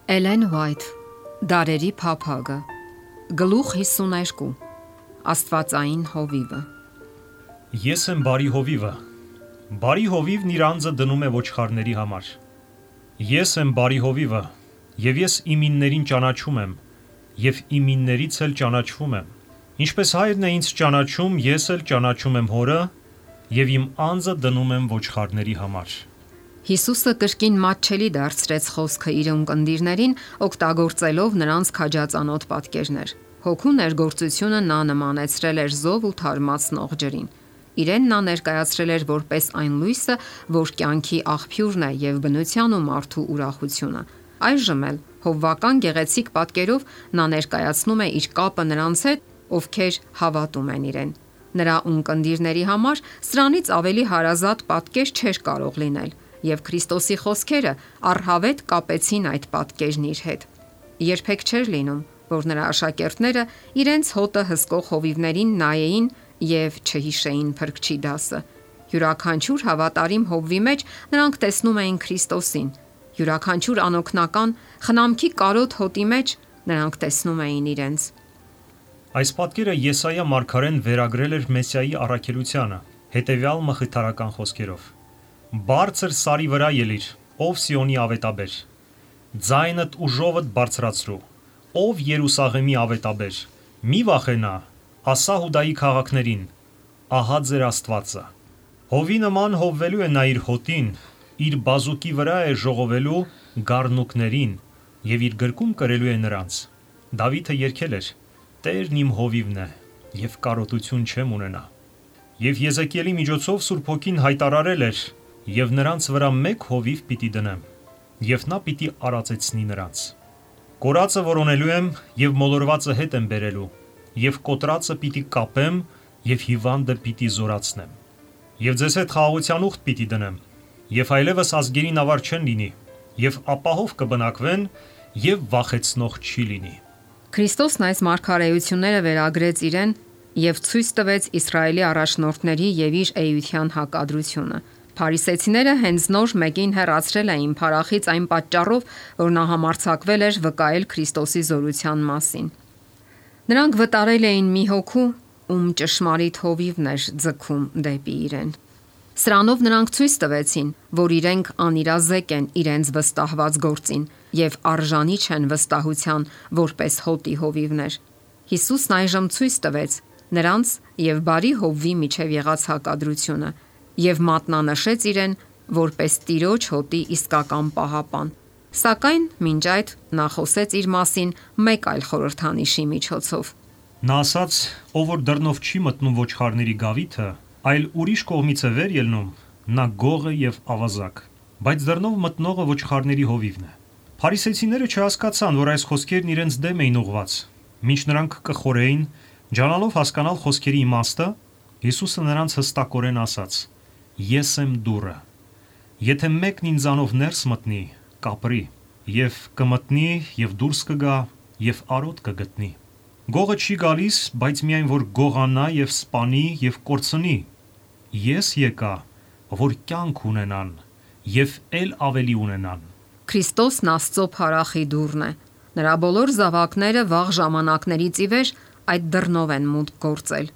Էլեն Վայթ, Դարերի փափագը, Գլուխ 52, Աստվածային հովիվը։ Ես եմ բարի հովիվը։ Բարի հովիվն իր անձը դնում է ոչխարների համար։ Ես եմ բարի հովիվը, եւ ես իմիններին ճանաչում եմ, եւ իմիններից էլ ճանաչվում եմ։ Ինչպես հայրն է ինձ ճանաչում, ես էլ ճանաչում եմ հորը, եւ իմ անձը դնում եմ ոչխարների համար։ Հիսուսը կրկին մատչելի դարձրեց խոսքը իր ունկնդիրներին, օգտագործելով նրանց քաջածանոթ պատկերներ։ Հոգու ներգործությունը նա նմանեցրել էր զով ու թարմացնող ջրին։ Իրեն նա ներկայացրել էր որպես այն լույսը, որ կյանքի աղբյուրն է եւ բնության ու մարդու ուրախությունը։ Այժմ էլ հովվական գեղեցիկ պատկերով նա ներկայացնում է իր կապը նրանց հետ, ովքեր հավատում են իրեն։ Նրա ունկնդիրների համար սրանից ավելի հարազատ պատկեր չէր կարող լինել, եւ Քրիստոսի խոսքերը առհավետ կապեցին այդ պատկերն իր հետ։ Երբեք չէր լինում, որ նրա աշակերտները իրենց հոտը հսկող հովիվներին նայեին եւ չհիշեին Փրկչի դասը։ Յուրաքանչյուր հավատարիմ հովվի մեջ նրանք տեսնում էին Քրիստոսին։ Յուրաքանչյուր անօգնական խնամքի կարոտ հոտի մեջ նրանք տեսնում էին իրենց։ Այս պատկերը Եսայա մարգարեն վերագրել էր Մեսիայի առաքելությանը, հետևյալ մխիթարական խոսքերով. Բարձր սարի վրա ելիր, ով Սիոնի ավետաբեր, ձայնդ ու ժովդ բարձրացրու, ով Երուսաղեմի ավետաբեր, մի վախենա, ասա Հուդայի քաղաքներին, ահա ձեր Աստվածը։ Հովի նման հովվելու է նա իր հոտին, իր բազուկի վրա է ժողովելու գառնուկներին եւ իր գրկում կրելու է նրանց։ Դավիթը երգել էր. Տերն իմ հովիվն է եւ կարոտություն չեմ ունենա։ Եվ Եզեկիելի միջոցով Սուրբ Հոգին հայտարարել էր. Եվ նրանց վրա մեկ հովիվ պիտի դնեմ, եւ նա պիտի արածեցնի նրանց։ Կորածը որոնելու եմ եւ մոլորվածը հետ եմ բերելու, եւ կոտրածը պիտի կապեմ եւ հիվանդը պիտի զորացնեմ։ Եվ ձեզ հետ խաղաղության ուխտ պիտի դնեմ, եւ այլևս ազգերին ավար չեն լինի, եւ ապահով կբնակվեն եւ վախեցնող չի լինի։ Քրիստոսն այս մարգարեությունները վերագրեց իրեն եւ ցույց տվեց Իսրայելի առաջնորդների եւ իր էության հակադրությունը։ Փարիսեցիները հենց նոր մեկին հեռացրել էին փարախից այն պատճառով, որ նա համարձակվել էր վկայել Քրիստոսի զորության մասին։ Նրանք վտարել էին մի հոգու, ում ճշմարիտ հովիվն էր ձգում դեպի իրեն։ Սրանով նրանք ցույց տվեցին, որ իրենք անիրազեկ են իրենց վստահված գործին եւ արժանի չեն վստահության որպես հոտի հովիվներ։ Հիսուսն այժմ ցույց տվեց նրանց եւ բարի հովվի միջև եղած հակադրությունը եւ մատնանշեց իրեն որպես Տիրոջ հոտի իսկական պահապան։ Սակայն մինչ այդ նա խոսեց իր մասին մեկ այլ խորհրդանիշի միջոցով։ Նա ասաց, ով որ դռնով չի մտնում ոչխարների գավիթը, այլ ուրիշ կողմից է վեր ելնում, նա գող է եւ ավազակ, բայց դռնով մտնողը ոչխարների հովիվն է։ Փարիսեցիները չհասկացան, որ այս խոսքերն իրենց դեմ էին ուղված։ Մինչ նրանք կխորեին, ջանալով հասկանալ խոսքերի իմաստը, Հիսուսը նրանց հստակորեն ասաց. Ես եմ դուռը։ Եթե մեկն ինձանով ներս մտնի, կապրի, եւ կմտնի եւ դուրս կգա եւ արոտ կգտնի։ Գողը չի գալիս, բայց միայն որ գողանա եւ սպանի եւ կորցնի։ Ես եկա, որ կյանք ունենան եւ ել ավելի ունենան։ Քրիստոսն Աստծո փարախի դուռն է։ Նրա բոլոր զավակները վաղ ժամանակներից ի վեր այդ դռնով են մուտք գործել։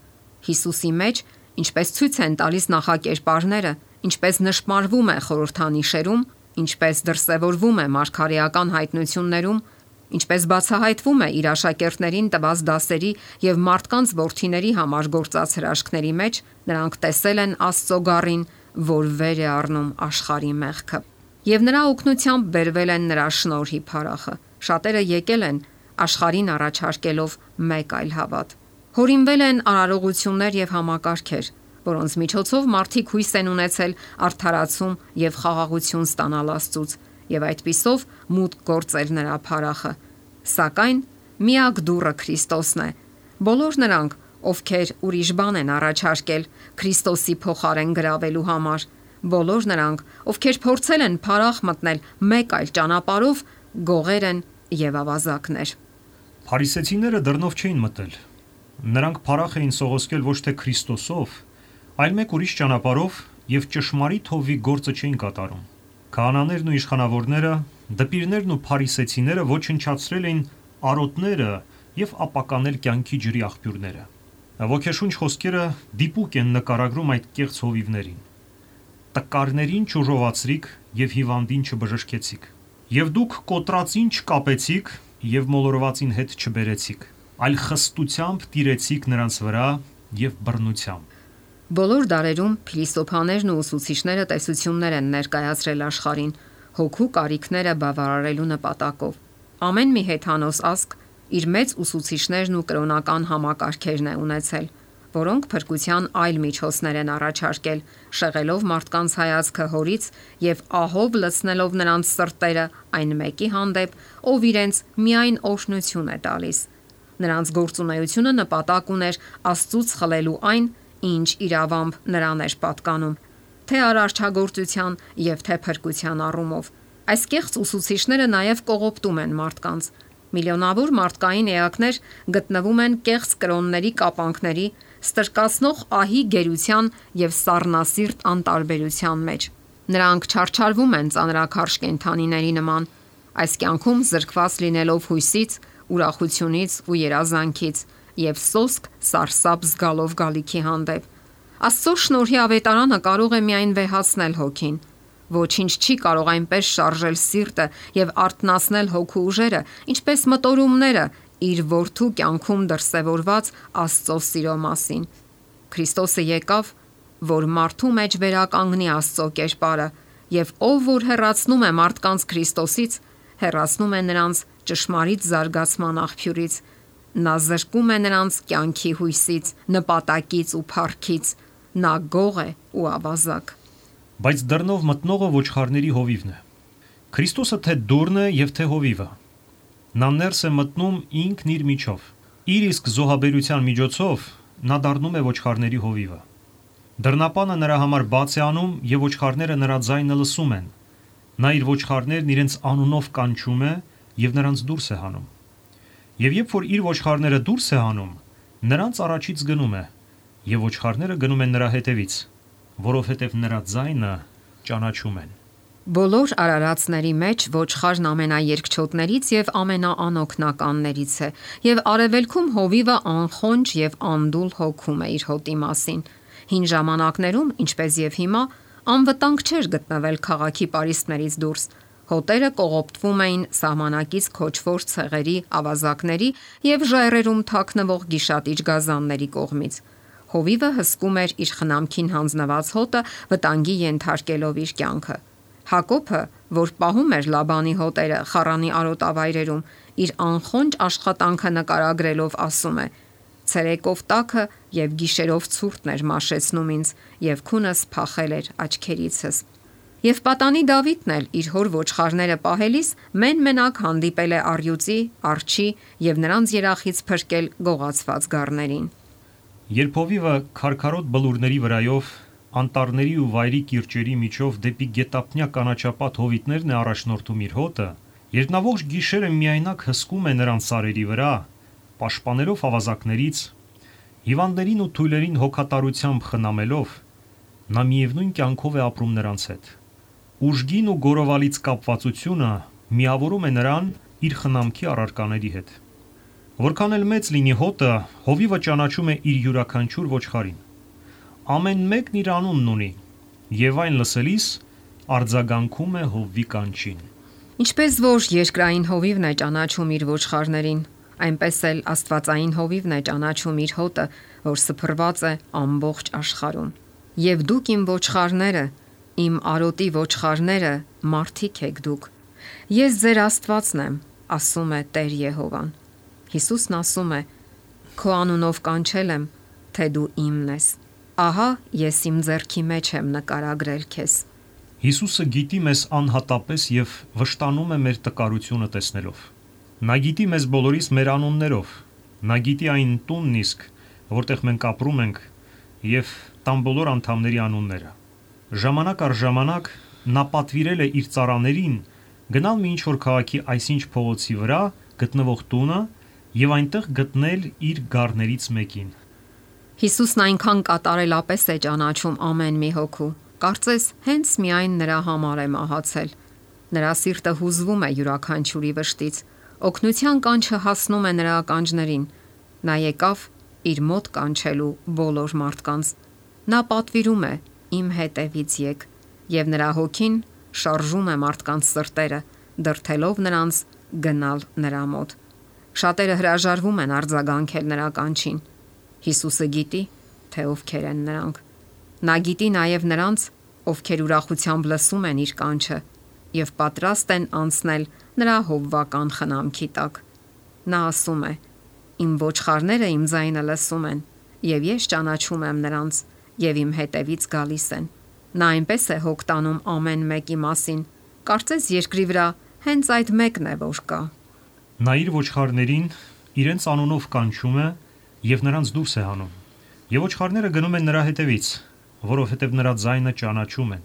Հիսուսի մեջ, ինչպես ցույց են տալիս նախակերպարները, ինչպես նշմարվում է խորհրդանիշերում, ինչպես դրսևորվում է մարգարեական հայտնություններում, ինչպես բացահայտվում է իր աշակերտներին տված դասերի եւ մարդկանց որդիների համար գործած հրաշքների մեջ, նրանք տեսել են Աստծո գառին, որ վեր է առնում աշխարհի մեղքը։ Եվ նրա օգնությամբ բերվել են նրա շնորհի փարախը։ Շատերը եկել են աշխարհին առաջարկելով մեկ այլ հավատ։ Հորինվել են արարողություններ եւ համակարգեր, որոնց միջոցով մարդիկ հույս են ունեցել արդարացում եւ խաղաղություն ստանալ Աստծուց եւ այդպիսով մուտք գործել նրա փարախը։ Սակայն միակ դուռը Քրիստոսն է։ Բոլոր նրանք, ովքեր ուրիշ բան են առաջարկել Քրիստոսի փոխարեն գրավելու համար, բոլոր նրանք, ովքեր փորձել են փարախ մտնել մեկ այլ ճանապարհով, գողեր են եւ ավազակներ։ Փարիսեցիները դռնով չէին մտել։ Նրանք փարախ էին սողոսկել ոչ թե Քրիստոսով, այլ մեկ ուրիշ ճանապարհով եւ ճշմարիտ հովի գործը չէին կատարում։ Քահանաներն ու իշխանավորները, դպիրներն ու փարիսեցիները ոչնչացրել էին արոտները եւ ապականել կյանքի ջրի աղբյուրները։ Ոգեշունչ խոսքերը դիպուկ են նկարագրում այդ կեղծ հովիվներին։ Տկարներին չուժովացրիք եւ հիվանդին չբժշկեցիք։ Եվ դուք կոտրածին չկապեցիք եւ մոլորվածին հետ չբերեցիք, այլ խստությամբ տիրեցիք նրանց վրա եւ բռնությամբ։ Բոլոր դարերում փիլիսոփաներն ու ուսուցիչները տեսություններ են ներկայացրել աշխարհին հոգու կարիքները բավարարելու նպատակով։ Ամեն մի հեթանոս ազգ իր մեծ ուսուցիչներն ու կրոնական համակարգերն է ունեցել, որոնք փրկության այլ միջոցներ են առաջարկել, շեղելով մարդկանց հայացքը հորից եւ ահով լցնելով նրանց սրտերը այն մեկի հանդեպ, ով իրենց միայն օրհնություն է տալիս։ Նրանց գործունեությունը նպատակ ուներ Աստծուց խլելու այն, ինչ իրավամբ նրան էր պատկանում, թե արարչագործության եւ թե փրկության առումով։ Այս կեղծ ուսուցիչները նաեւ կողոպտում են մարդկանց։ Միլիոնավոր մարդկային էակներ գտնվում են կեղծ կրոնների կապանքների, ստրկացնող ահի գերության եւ սառնասիրտ անտարբերության մեջ։ Նրանք չարչարվում են ծանրաքարշ կենդանիների նման, այս կյանքում զրկված լինելով հույսից, ուրախությունից ու երազանքից եւ սոսկ սարսափ զգալով գալիքի հանդեպ։ Աստծո շնորհի ավետարանը կարող է միայն վեհացնել հոգին։ Ոչինչ չի կարող այնպես շարժել սիրտը եւ արթնացնել հոգու ուժերը, ինչպես մտորումները իր որդու կյանքում դրսևորված Աստծո սիրո մասին։ Քրիստոսը եկավ, որ մարդու մեջ վերականգնի Աստծո կերպարը, եւ ով որ հեռացնում է մարդկանց Քրիստոսից, հեռացնում է նրանց ճշմարիտ զարգացման աղբյուրից։ Նա զրկում է նրանց կյանքի հույսից, նպատակից ու փառքից։ Նա գող է ու ավազակ։ Բայց դռնով մտնողը ոչխարների հովիվն է։ Քրիստոսը թե դուռն է եւ թե հովիվը։ Նա ներս է մտնում ինքն իր միջով։ Իր իսկ զոհաբերության միջոցով նա դառնում է ոչխարների հովիվը։ Դռնապանը նրա համար բաց է անում եւ ոչխարները նրա ձայնը լսում են։ Նա իր ոչխարներն իրենց անունով կանչում է եւ նրանց դուրս է հանում։ Եվ երբ որ իր ոչխարները դուրս է հանում, նրանց առաջից գնում է եւ ոչխարները գնում են նրա հետևից, որովհետև նրա ձայնը ճանաչում են։ Բոլոր արարածների մեջ ոչխարն ամենաերկչոտներից եւ ամենաանօգնականներից է, եւ արևելքում հովիվը անխոնջ եւ անդուլ հոգում է իր հոտի մասին։ Հին ժամանակներում, ինչպես եւ հիմա, անվտանգ չէր գտնվել քաղաքի պարիսպներից դուրս։ Հոտերը կողոպտվում էին սահմանակից քոչվոր ցեղերի, ավազակների եւ ժայռերում թաքնվող գիշատիչ գազանների կողմից։ Հովիվը հսկում էր իր խնամքին հանձնված հոտը, վտանգի ենթարկելով իր կյանքը։ Հակոբը, որ պահում էր Լաբանի հոտերը Խառանի արոտավայրերում, իր անխոնջ աշխատանքը նկարագրելով ասում է. «Ցերեկով տաքը եւ գիշերով ցուրտն էր մաշեցնում ինձ, եւ քունս փախել էր աչքերիցս»։ Եվ պատանի Դավիթն էլ իր հոր ոչխարները պահելիս մեն-մենակ հանդիպել է առյուծի, արջի եւ նրանց երախից փրկել գողացված գառներին։ Երբ հովիվը քարքարոտ բլուրների վրայով, անտառների ու վայրի կիրճերի միջով դեպի գետափնյա կանաչապատ հովիտներն է առաջնորդում իր հոտը, երբ նա ողջ գիշերը միայնակ հսկում է նրանց սարերի վրա, պաշտպանելով ավազակներից, հիվանդներին ու թույլերին հոգատարությամբ խնամելով, նա միևնույն կյանքով է ապրում նրանց հետ։ Ուժգին ու գորովալից կապվածությունը միավորում է նրան իր խնամքի առարկաների հետ։ Որքան էլ մեծ լինի հոտը, հովիվը ճանաչում է իր յուրաքանչյուր ոչխարին։ Ամեն մեկն իր անունն ունի, եւ այն լսելիս արձագանքում է հովվի կանչին։ Ինչպես որ երկրային հովիվն է ճանաչում իր ոչխարներին, այնպես էլ աստվածային հովիվն է ճանաչում իր հոտը, որ սփռված է ամբողջ աշխարհում։ Եվ դուք իմ ոչխարները, իմ արոտի ոչխարները, մարդիկ եք դուք։ Ես ձեր Աստվածն եմ, ասում է Տեր Եհովան։ Հիսուսն ասում է. Քո անունով կանչել եմ, թե դու իմն ես։ Ահա ես իմ ձեռքի մեջ եմ նկարագրել քեզ։ Հիսուսը գիտի մեզ անհատապես եւ վշտանում է մեր տկարությունը տեսնելով։ Նա գիտի մեզ բոլորիս մեր անուններով։ Նա գիտի այն տունն իսկ, որտեղ մենք ապրում ենք, եւ տան բոլոր անդամների անունները։ Ժամանակ առ ժամանակ նա պատվիրել է իր ծառաներին գնալ մի ինչ-որ քաղաքի այսինչ փողոցի վրա գտնվող տունը եւ այնտեղ գտնել իր գառներից մեկին։ Հիսուսն այնքան կատարելապես է ճանաչում ամեն մի հոգու, Կարծես հենց միայն նրա համար է մահացել։ Նրա սիրտը հուզվում է յուրաքանչյուրի վշտից, օգնության կանչը հասնում է նրա ականջներին։ Նա եկավ իր մոտ կանչելու բոլոր մարդկանց։ Նա պատվիրում է. «Իմ հետևից եկ», եւ նրա հոգին շարժում է մարդկանց սրտերը, դրթելով նրանց գնալ նրա մոտ։ Շատերը հրաժարվում են արձագանքել նրա կանչին։ Հիսուսը գիտի, թե ովքեր են նրանք։ Նա գիտի նաև նրանց, ովքեր ուրախությամբ լսում են իր կանչը եւ պատրաստ են անցնել նրա հովվական խնամքի տակ։ Նա ասում է. «Իմ ոչխարները իմ ձայնը լսում են, եւ ես ճանաչում եմ նրանց, եւ իմ հետևից գալիս են»։ Նա այնպես է հոգ տանում ամեն մեկի մասին, կարծես երկրի վրա հենց այդ մեկն է, որ կա։ Նա իր ոչխարներին իրենց անունով կանչում է եւ նրանց դուրս է հանում։ Եվ ոչխարները գնում են նրա հետևից, որովհետև նրա ձայնը ճանաչում են։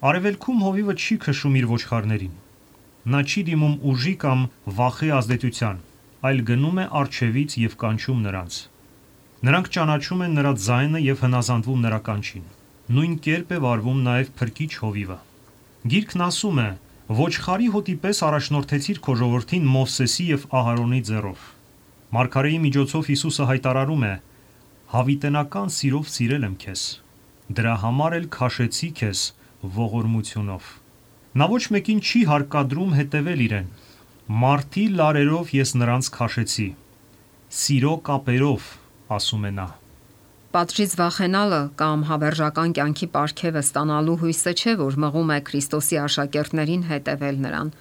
Արևելքում հովիվը չի քշում իր ոչխարներին։ Նա չի դիմում ուժի կամ վախի ազդեցության, այլ գնում է առջևից եւ կանչում նրանց։ Նրանք ճանաչում են նրա ձայնը եւ հնազանդվում նրա կանչին։ Նույն կերպ է վարվում նաեւ փրկիչ հովիվը։ Գիրքն ասում է. «Ոչխարի հոտի պես առաջնորդեցիր քո ժողովրդին Մովսեսի եւ Ահարոնի ձեռով»։ Մարգարեի միջոցով Հիսուսը հայտարարում է. «Հավիտենական սիրով սիրել եմ քեզ, դրա համար էլ քաշեցի քեզ ողորմությունով»։ Նա ոչ մեկին չի հարկադրում հետևել իրեն։ «Մարդի լարերով ես նրանց քաշեցի, սիրո կապերով», ասում է նա։ Պատժից վախենալը կամ հավերժական կյանքի պարգևը ստանալու հույսը չէ, որ մղում է Քրիստոսի աշակերտներին հետևել նրան։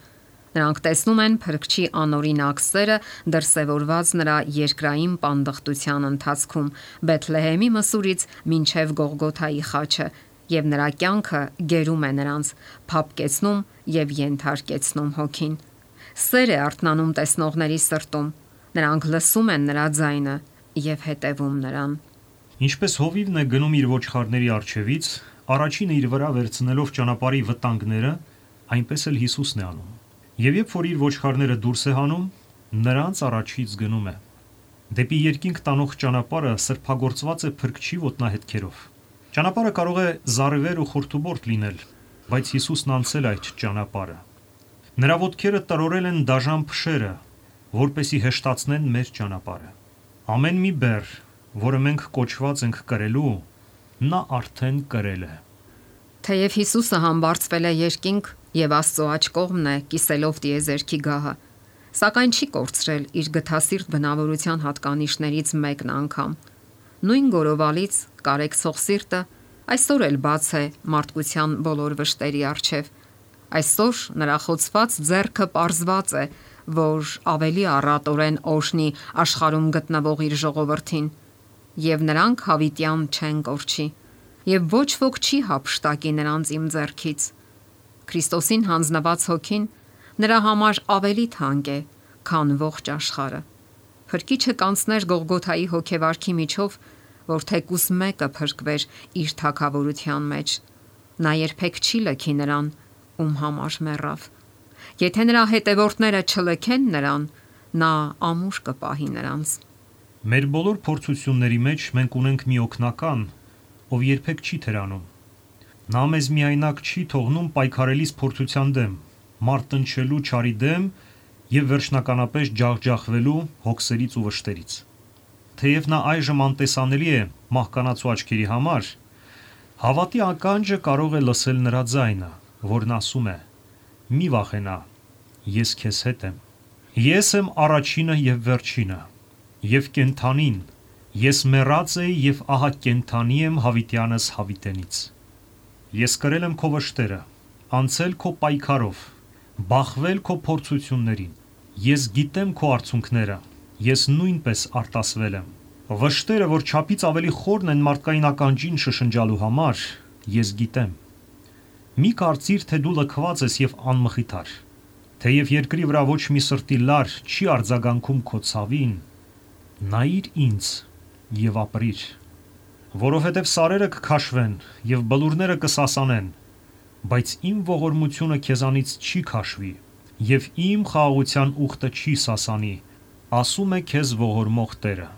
Նրանք տեսնում են Փրկչի անօրինակ սերը դրսևորված նրա երկրային պանդխտության ընթացքում Բեթլեհեմի մսուրից մինչև Գողգոթայի խաչը, եւ նրա կյանքը գերում է նրանց, փափկեցնում եւ ենթարկեցնում հոգին։ Սեր է արթնանում տեսնողների սրտում։ Նրանք լսում են նրա ձայնը եւ հետևում նրան։ Ինչպես հովիվն է գնում իր ոչխարների առջևից, առաջինը իր վրա վերցնելով ճանապարհի վտանգները, այնպես էլ Հիսուսն է անում։ Եվ երբ որ իր ոչխարները դուրս է հանում, նրանց առաջից գնում է։ Դեպի երկինք տանող ճանապարհը սրբագործված է Փրկչի ոտնահետքերով։ Ճանապարհը կարող է զառիվեր ու խորտուբորտ լինել, բայց Հիսուսն անցել այդ ճանապարհը։ Նրա ոտքերը տրորել են դաժան փշերը, որպեսի հեշտացնեն մեր ճանապարհը։ Ամեն մի բեռ, որը մենք կոչված ենք կրելու, նա արդեն կրել է։ Թեև Հիսուսը համբարձվել է երկինք եւ Աստծո աջ կողմն է կիսելով տիեզերքի գահը, սակայն չի կորցրել իր գթասիրտ բնավորության հատկանիշներից մեկն անգամ։ Նույն գորովալից կարեկցող սիրտը այսօր էլ բաց է մարդկության բոլոր վշտերի առջև։ Այսօր նրա խոցված ձեռքը պարզված է, որ ավելի առատորեն օժնի աշխարհում գտնվող իր ժողովրդին, եւ նրանք հավիտյան չեն կորչի, եւ ոչ ոք չի հափշտակի նրանց իմ ձեռքից։ Քրիստոսին հանձնված հոգին նրա համար ավելի թանկ է, քան ողջ աշխարհը։ Փրկիչը կանցներ Գողգոթայի հոգեվարքի միջով, որ թեկուս մեկը փրկվեր իր թագավորության մեջ։ Նա երբեք չի լքի նրան, ում համար մեռավ։ Եթե նրա հետևորդները չլքեն նրան, նա ամուր կպահի նրանց։ Մեր բոլոր փորձությունների մեջ մենք ունենք մի օգնական, ով երբեք չի թերանում։ Նա մեզ միայնակ չի թողնում պայքարելիս փորձության դեմ, մարտնչելու չարի դեմ եւ վերջնականապես ջախջախվելու հոգսերից ու վշտերից։ Թեև նա այժմ անտեսանելի է մահկանացու աչքերի համար, հավատի ականջը կարող է լսել նրա ձայնը, որն ասում է. «Մի վախենա, ես քեզ հետ եմ։ Ես եմ առաջինը եւ վերջինը, եւ կենթանին, ես մեռած էի եւ ահա կենթանի եմ հավիտյանս հավիտենից։ Ես կրել եմ քո վշտերը, անցել քո պայքարով, բախվել քո փորձություններին։ Ես գիտեմ քո արցունքները, ես նույնպես արտասվել եմ։ Վշտերը, որ չափից ավելի խորն են մարդկային ականջին շշնջալու համար, ես գիտեմ։ Մի կարծիր, թե դու լքված ես եւ անմխիթար, թեև երկրի վրա ոչ մի սրտի լար չի արձագանքում քո ցավին, նայիր ինձ եւ ապրիր, որովհետեւ սարերը կքաշվեն եւ բլուրները կսասանեն, բայց իմ ողորմությունը քեզանից չի քաշվի եւ իմ խաղաղության ուխտը չի սասանի, ասում է քեզ ողորմող Տերը։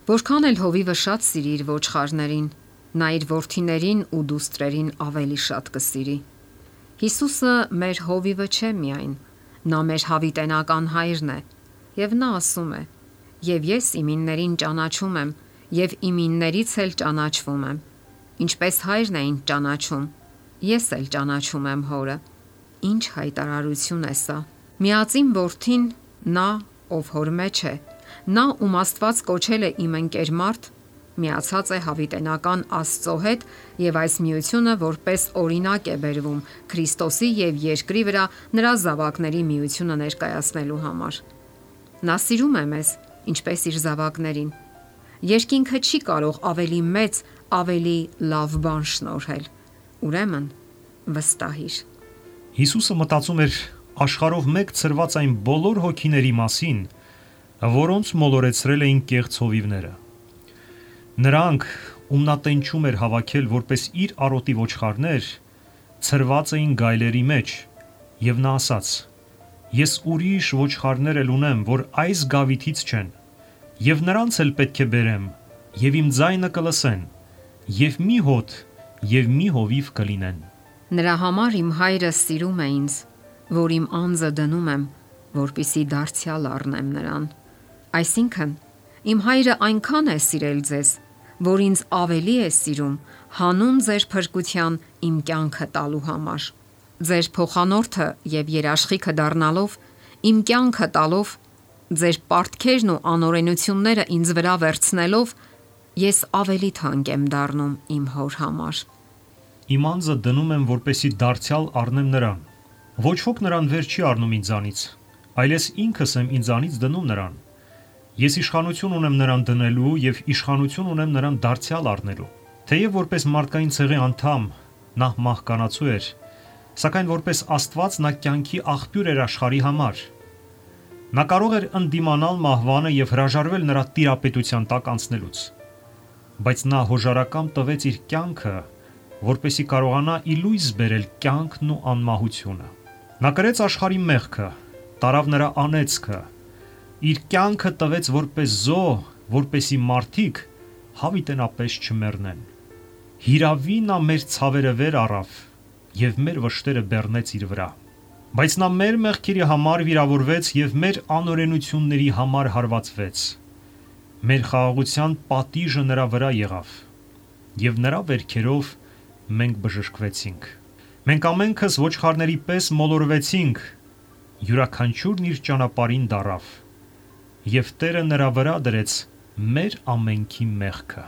Որքան էլ հովիվը շատ սիրի իր ոչխարներին, նա իր որդիներին ու դուստրերին ավելի շատ կսիրի։ Հիսուսը մեր հովիվը չէ միայն, նա մեր հավիտենական հայրն է, եւ նա ասում է. «Եվ ես իմիններին ճանաչում եմ, եւ իմիններից էլ ճանաչվում եմ, ինչպես հայրն է ինձ ճանաչում, ես էլ ճանաչում եմ հորը»։ Ինչ հայտարարություն է սա։ Միածին որդին, նա, ով հոր մեջ է, նա, ում Աստված կոչել է իմ ընկեր մարդ, միացած է հավիտենական Աստծո հետ եւ այս միությունը որպես օրինակ է բերվում Քրիստոսի եւ երկրի վրա նրա զավակների միությունը ներկայացնելու համար։ Նա սիրում է մեզ, ինչպես իր զավակներին։ Երկինքը չի կարող ավելի մեծ, ավելի լավ բան շնորհել։ Ուրեմն վստահիր։ Հիսուսը մտածում էր աշխարհով մեկ ծրված այն բոլոր հոգիների մասին, որոնց մոլորեցրել էին կեղծ հովիվները։ Նրանք, ում նա տենչում էր հավաքել որպես իր արոտի ոչխարներ, ծրված էին գայլերի մեջ, եւ նա ասաց. «Ես ուրիշ ոչխարներ էլ ունեմ, որ այս գավիթից չեն, եւ նրանց էլ պետք է բերեմ, եւ իմ ձայնը կլսեն, եւ մի հոտ եւ մի հովիվ կլինեն»։ Նրա համար իմ հայրը սիրում է ինձ, որ իմ անձը դնում եմ, որպիսի դարձյալ առնեմ նրան։ Այսինքն, իմ հայրը այնքան է սիրել ձեզ, որ ինձ ավելի է սիրում հանուն ձեր փրկության իմ կյանքը տալու համար։ Ձեր փոխանորդը եւ երաշխիքը դառնալով, իմ կյանքը տալով, ձեր պարտքերն ու անօրենությունները ինձ վրա վերցնելով, ես ավելի թանկ եմ դառնում իմ հոր համար։ Իմ անձը դնում եմ, որպեսի դարձյալ առնեմ նրան։ Ոչ ոք նրան վեր չի առնում ինձանից, այլ ես ինքս եմ ինձանից դնում նրան։ Ես իշխանություն ունեմ նրան դնելու եւ իշխանություն ունեմ նրան դարձյալ առնելու։ Թեև որպես մարդկային ցեղի անդամ նա մահկանացու էր, սակայն որպես Աստված նա կյանքի աղբյուր էր աշխարհի համար։ Նա կարող էր ընդդիմանալ մահվանը եւ հրաժարվել նրա տիրապետության տակ անցնելուց։ Բայց նա հոժարակամ տվեց իր կյանքը, որպեսի կարողանա ի լույս բերել կյանքն ու անմահությունը։ Նա կրեց աշխարհի մեղքը, տարավ նրա անեծքը, իր կյանքը տվեց որպես զոհ, որպեսի մարդիկ հավիտենապես չմեռնեն։ Հիրավի նա մեր ցավերը վեր առավ եւ մեր վշտերը բեռնեց իր վրա։ Բայց նա մեր մեղքերի համար վիրավորվեց եւ մեր անօրենությունների համար հարվածվեց։ Մեր խաղաղության պատիժը նրա վրա եղավ եւ նրա վերքերով մենք բժշկվեցինք։ Մենք ամենքս ոչխարների պես մոլորվեցինք, յուրաքանչյուրն իր ճանապարհին դարավ, եւ Տերը նրա վրա դրեց մեր ամենքի մեղքը։